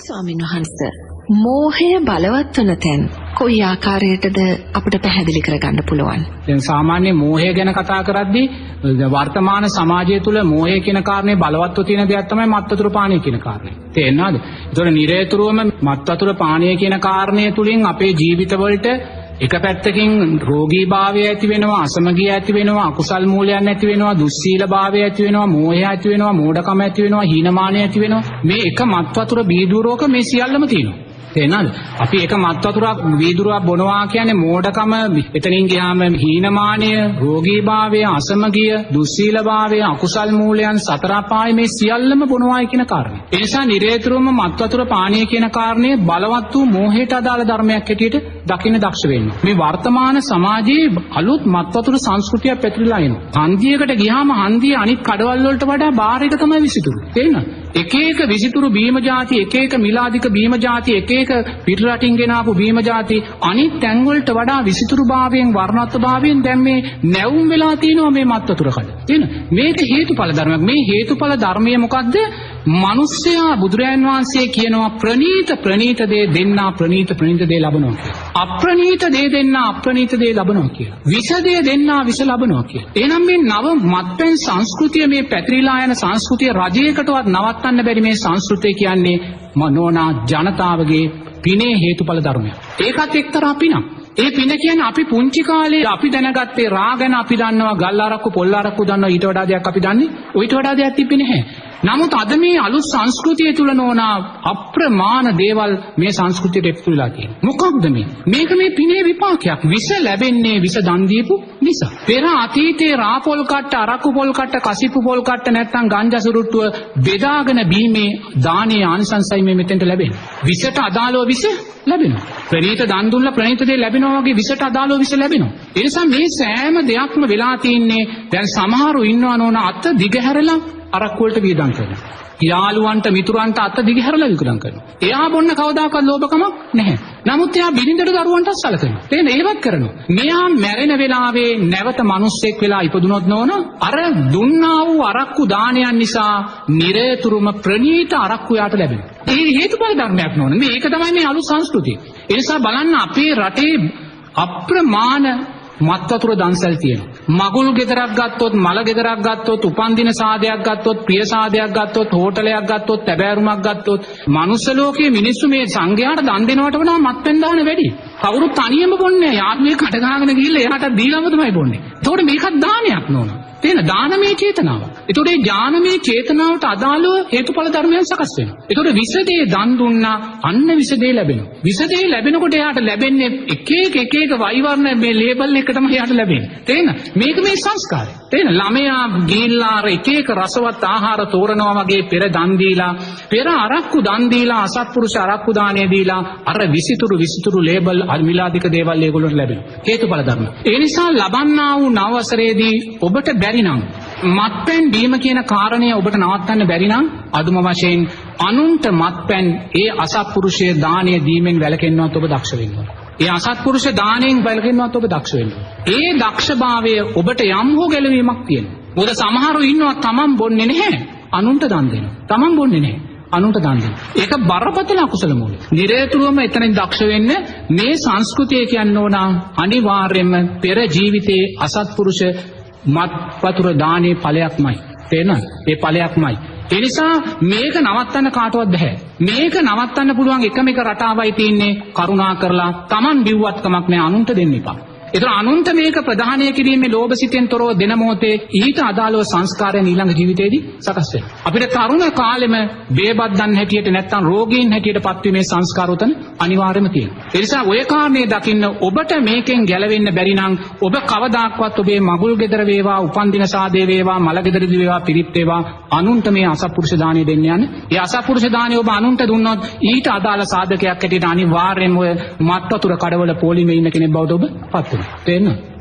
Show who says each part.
Speaker 1: ස්වාමීන් වහන්සේ, මෝහය බලවත් වන තැන් කොයි ආකාරයටද අපිට පැහැදිලි කරගන්න පුළුවන්?
Speaker 2: දැන් සාමාන්‍ය මෝහය ගැන කතා කරද්දී වර්තමාන සමාජය තුළ මෝහය කියන කාරණේ බලවත්ව තියෙන දෙයක් තමයි මත් වතුර පානය කියන කාරණේ. තේරෙනවද? ඒතකොට නිරේතුරුවම මත් වතුර පානය කියන කාරණය තුලින් අපේ ජීවිතවලට එක පැත්තකින් රෝගී භාවය ඇති වෙනවා, අසමගිය ඇති වෙනවා, අකුසල් මූලයන් ඇති වෙනවා, දුස්සීල භාවය ඇති වෙනවා, මෝහය ඇති වෙනවා, මෝඩකම ඇති වෙනවා, හීනමානය ඇති වෙනවා. මේ එක මත් වතුර බීදුරෝක මේ සියල්ලම තියෙනවා. තේරෙනවද? අපි එක මත් වතුරක් වීදුරුවක් බොනවා කියන්නේ මෝඩකම, එතනින් ගියාම හීනමානය, රෝගී භාවය, අසමගිය, දුස්සීල භාවය, අකුසල් මූලයන්, සතර අපාය මේ සියල්ලම බොනවායි කියන කාරණය. ඒ නිසා නිරේතුරුවම මත් වතුර පානය කියන කාරණය බලවත් වූ මෝහයට අදාළ ධර්මයක් හැටියට දකින්න දක්ෂ වෙන්න. මේ වර්තමාන සමාජයේ අලුත් මත් වතුර සංස්කෘතියක් පැතිරලා එනවා. හන්දියකට ගියාම හන්දිය අනිත් කඩවල් වලට වඩා බාර් එක තමයි විසිතුරු. තේරෙනවද? එක එක විසිතුරු බීම જાති, එක එක මිලාදික බීම જાති, එක එක පිට රටින් ගෙන ආපු බීම જાති අනිත් තැන් වලට වඩා විසිතුරු භාවයෙන්, වර්ණත්ව භාවයෙන් දැන් මේ නැවුම් වෙලා තියෙනවා මේ මත් වතුර කඩ. තේරෙනවද? මේක හේතුඵල ධර්මයක්. මේ හේතුඵල ධර්මය මොකද්ද? මිනිස්සයා බුදුරයන් වහන්සේ කියනවා ප්‍රනීත ප්‍රනීත දේ දෙන්නා ප්‍රනීත ප්‍රනීත දේ ලබනවා කියලා. අප්‍රනීත දේ දෙන්නා අප්‍රනීත දේ ලබනවා කියලා. විෂ දේ දෙන්නා විෂ ලබනවා කියලා. එහෙනම් මේ නව මත්පැන් සංස්කෘතිය, මේ පැතිරිලා යන සංස්කෘතිය රජයකටවත් නවත්තන්න බැරි මේ සංස්කෘතිය කියන්නේ මනෝනා ජනතාවගේ පිනේ හේතුඵල ධර්මයක්. ඒකත් එක්තරා පිනක්. ඒ පින කියන්නේ අපි පුංචි කාලේ අපි දැනගත්තේ රා ගැන අපි දන්නවා, ගල් අරක්කු පොල් අරක්කු දන්නවා, ඊට වඩා දෙයක් අපි දන්නේ. ඊට වඩා දෙයක් තිබ්බේ නැහැ. නමුත් අද මේ අලුත් සංස්කෘතිය තුල නෝනා අප්‍රමාණ දේවල් මේ සංස්කෘතියට එකතු වෙලා තියෙනවා. මොකක්ද මේ? මේක මේ පිනේ විපාකයක්. විෂ ලැබෙන්නේ විෂ දන් දීපු නිසා. පෙර අතීතයේ රා පොල් කට්ට, අරක්කු පොල් කට්ට, කසිප්පු පොල් කට්ට නැත්තම් ගංජා සුරුට්ටුව බෙදාගෙන බීමේ දානේ ආනිසංසයි මේ මෙතෙන්ට ලැබෙන්නේ. විෂට අදාළව විෂ ලැබෙනවා. ප්‍රණීත දන් දුන්නා ප්‍රණීත දේ ලැබෙනවා වගේ විෂට අදාළව විෂ ලැබෙනවා. ඒ නිසා මේ සෑම දෙයක්ම වෙලා තින්නේ දැන් සමහරු ඉන්නවා නෝනා අත දිගහැරලා අරක්කු වලට වියදම් කරනවා. යාළුවන්ට මිතුරන්ට අත දිගහැරලා වියදම් කරනවා. එයා බොන්න කවදාකවත් ලෝභකමක් නැහැ. නමුත් එයා බිරිඳට දරුවන්ටත් සලකනවා. තේරෙනවද? ඒවත් කරනවා. මෙයා මැරෙන වෙලාවේ නැවත මිනිස්සෙක් වෙලා ඉපදුනොත් නෝන අර දුන්නා වූ අරක්කු දානයන් නිසා නිරේතුරුම ප්‍රණීත අරක්කු යාට ලැබෙනවා. ඒ හේතුඵල ධර්මයක් නෝන. මේක තමයි මේ අලුත් සංස්කෘතිය. ඒ නිසා බලන්න අපේ රටේ අප්‍රමාණ මත් වතුර දන්සල් තියෙනවා. මගුල් ගෙදරක් ගත්තොත්, මල ගෙදරක් ගත්තොත්, උපන්දින සාදයක් ගත්තොත්, ප්‍රිය සාදයක් ගත්තොත්, හෝටලයක් ගත්තොත්, තැබෑරුමක් ගත්තොත්, මනුස්ස ලෝකයේ මිනිස්සු මේ සංඝයාට දන් දෙනවට වඩා මත්පැන් දාන වැඩි. කවුරුත් තනියම බොන්නේ නැහැ. යාළුවෙක් කට ගහගෙන ගිහිල්ලා එයාට දීලාම තමයි බොන්නේ. එතකොට මේකත් දානයක් නෝන. තේන දානමය චේතනාව. එතකොට මේ ඥානමය චේතනාවට අදාළව හේතුඵල ධර්මයන් සකස් වෙනවා. එතකොට විෂ දේ දන් දුන්නා, අන්න විෂ දේ ලැබෙනවා. විෂ දේ ලැබෙනකොට එයාට ලැබෙන්නේ එක එක එක එක වෛවර්ණ මේ ලේබල් එක තමයි එයාට ලැබෙන්නේ. තේන මේක මේ සංස්කාරය. තේන ළමයා ගිහිල්ලා අර එක එක රසවත් ආහාර තෝරනවා වගේ පෙර දන් දීලා, පෙර අරක්කු දන් දීලා, අසත්පුරුෂ අරක්කු දාණය දීලා අර විසිතුරු විසිතුරු ලේබල් මිලාදික දේවල් ඒගොල්ලන්ට ලැබෙනවා. හේතුඵල ධර්ම. ඒ නිසා ලබන්නා වූ නව වසරේදී ඔබට බැරි නම් මත්පැන් බීම කියන කාරණය ඔබට නවත්තන්න බැරි නම් අදුම වශයෙන් අනුන්ට මත්පැන් ඒ අසත්පුරුෂය දාණය දීමෙන් වැළකෙන්නවත් ඔබ දක්ෂ වෙන්න ඕන. ඒ අසත්පුරුෂ දාණයෙන් වැළකෙන්නවත් ඔබ දක්ෂ වෙන්න ඕන. ඒ දක්ෂභාවය ඔබට යම් හෝ ගැලවීමක් තියෙනවා. මොකද සමහරු ඉන්නවා තමන් බොන්නේ නැහැ, අනුන්ට දන් දෙනවා. තමන් බොන්නේ නැහැ, අනුන්ට දන් දෙනවා. ඒක බරපතල අකුසල මූලය. නිරේතුරුවම එතනින් දක්ෂ වෙන්න මේ සංස්කෘතිය කියන්න ඕන අනිවාර්යයෙන්ම පෙර ජීවිතයේ අසත්පුරුෂ මත් වතුර දානේ ඵලයක්මයි. තේරෙනවද? ඒ ඵලයක්මයි. ඒ නිසා මේක නවත්තන්න කාටවත් බැහැ. මේක නවත්තන්න පුළුවන් එකම එක රටාවයි තියෙන්නේ කරුණා කරලා Taman බිව්වත් කමක් නෑ අනුන්ට දෙන්න එපා. ඒතර අනුන්ට මේක ප්‍රධානය කිරීමේ ලෝභ සිතෙන් තොරව දෙන මොහොතේ ඊට අදාළව සංස්කාරයන් ඊළඟ ජීවිතේදී සකස් වෙනවා. අපිට තරුණ කාලෙම බේබද්දන් හැටියට නැත්තම් රෝගීන් හැටියට පත්වීමේ සංස්කාර උතන අනිවාර්යයෙන්ම තියෙනවා. ඒ නිසා ඔය කාරණේ දකින්න ඔබට මේකෙන් ගැලවෙන්න බැරි නම් ඔබ කවදාක්වත් ඔබේ මගුල් ගෙදර වේවා, උපන්දින සාදේ වේවා, මල ගෙදරදී වේවා, පිරිත් වේවා අනුන්ට මේ අසත්පුරුෂ දාණය දෙන්න යන්න. ඒ අසත්පුරුෂ දාණය ඔබ අනුන්ට දුන්නොත් ඊට අදාළ සාධකයක් හැටියට අනිවාර්යයෙන්ම ඔය මත් වතුර කඩවල පොලිමේ ඉන්න කෙනෙක් බවට ඔබ පත් වෙනවා. තේරෙනවද?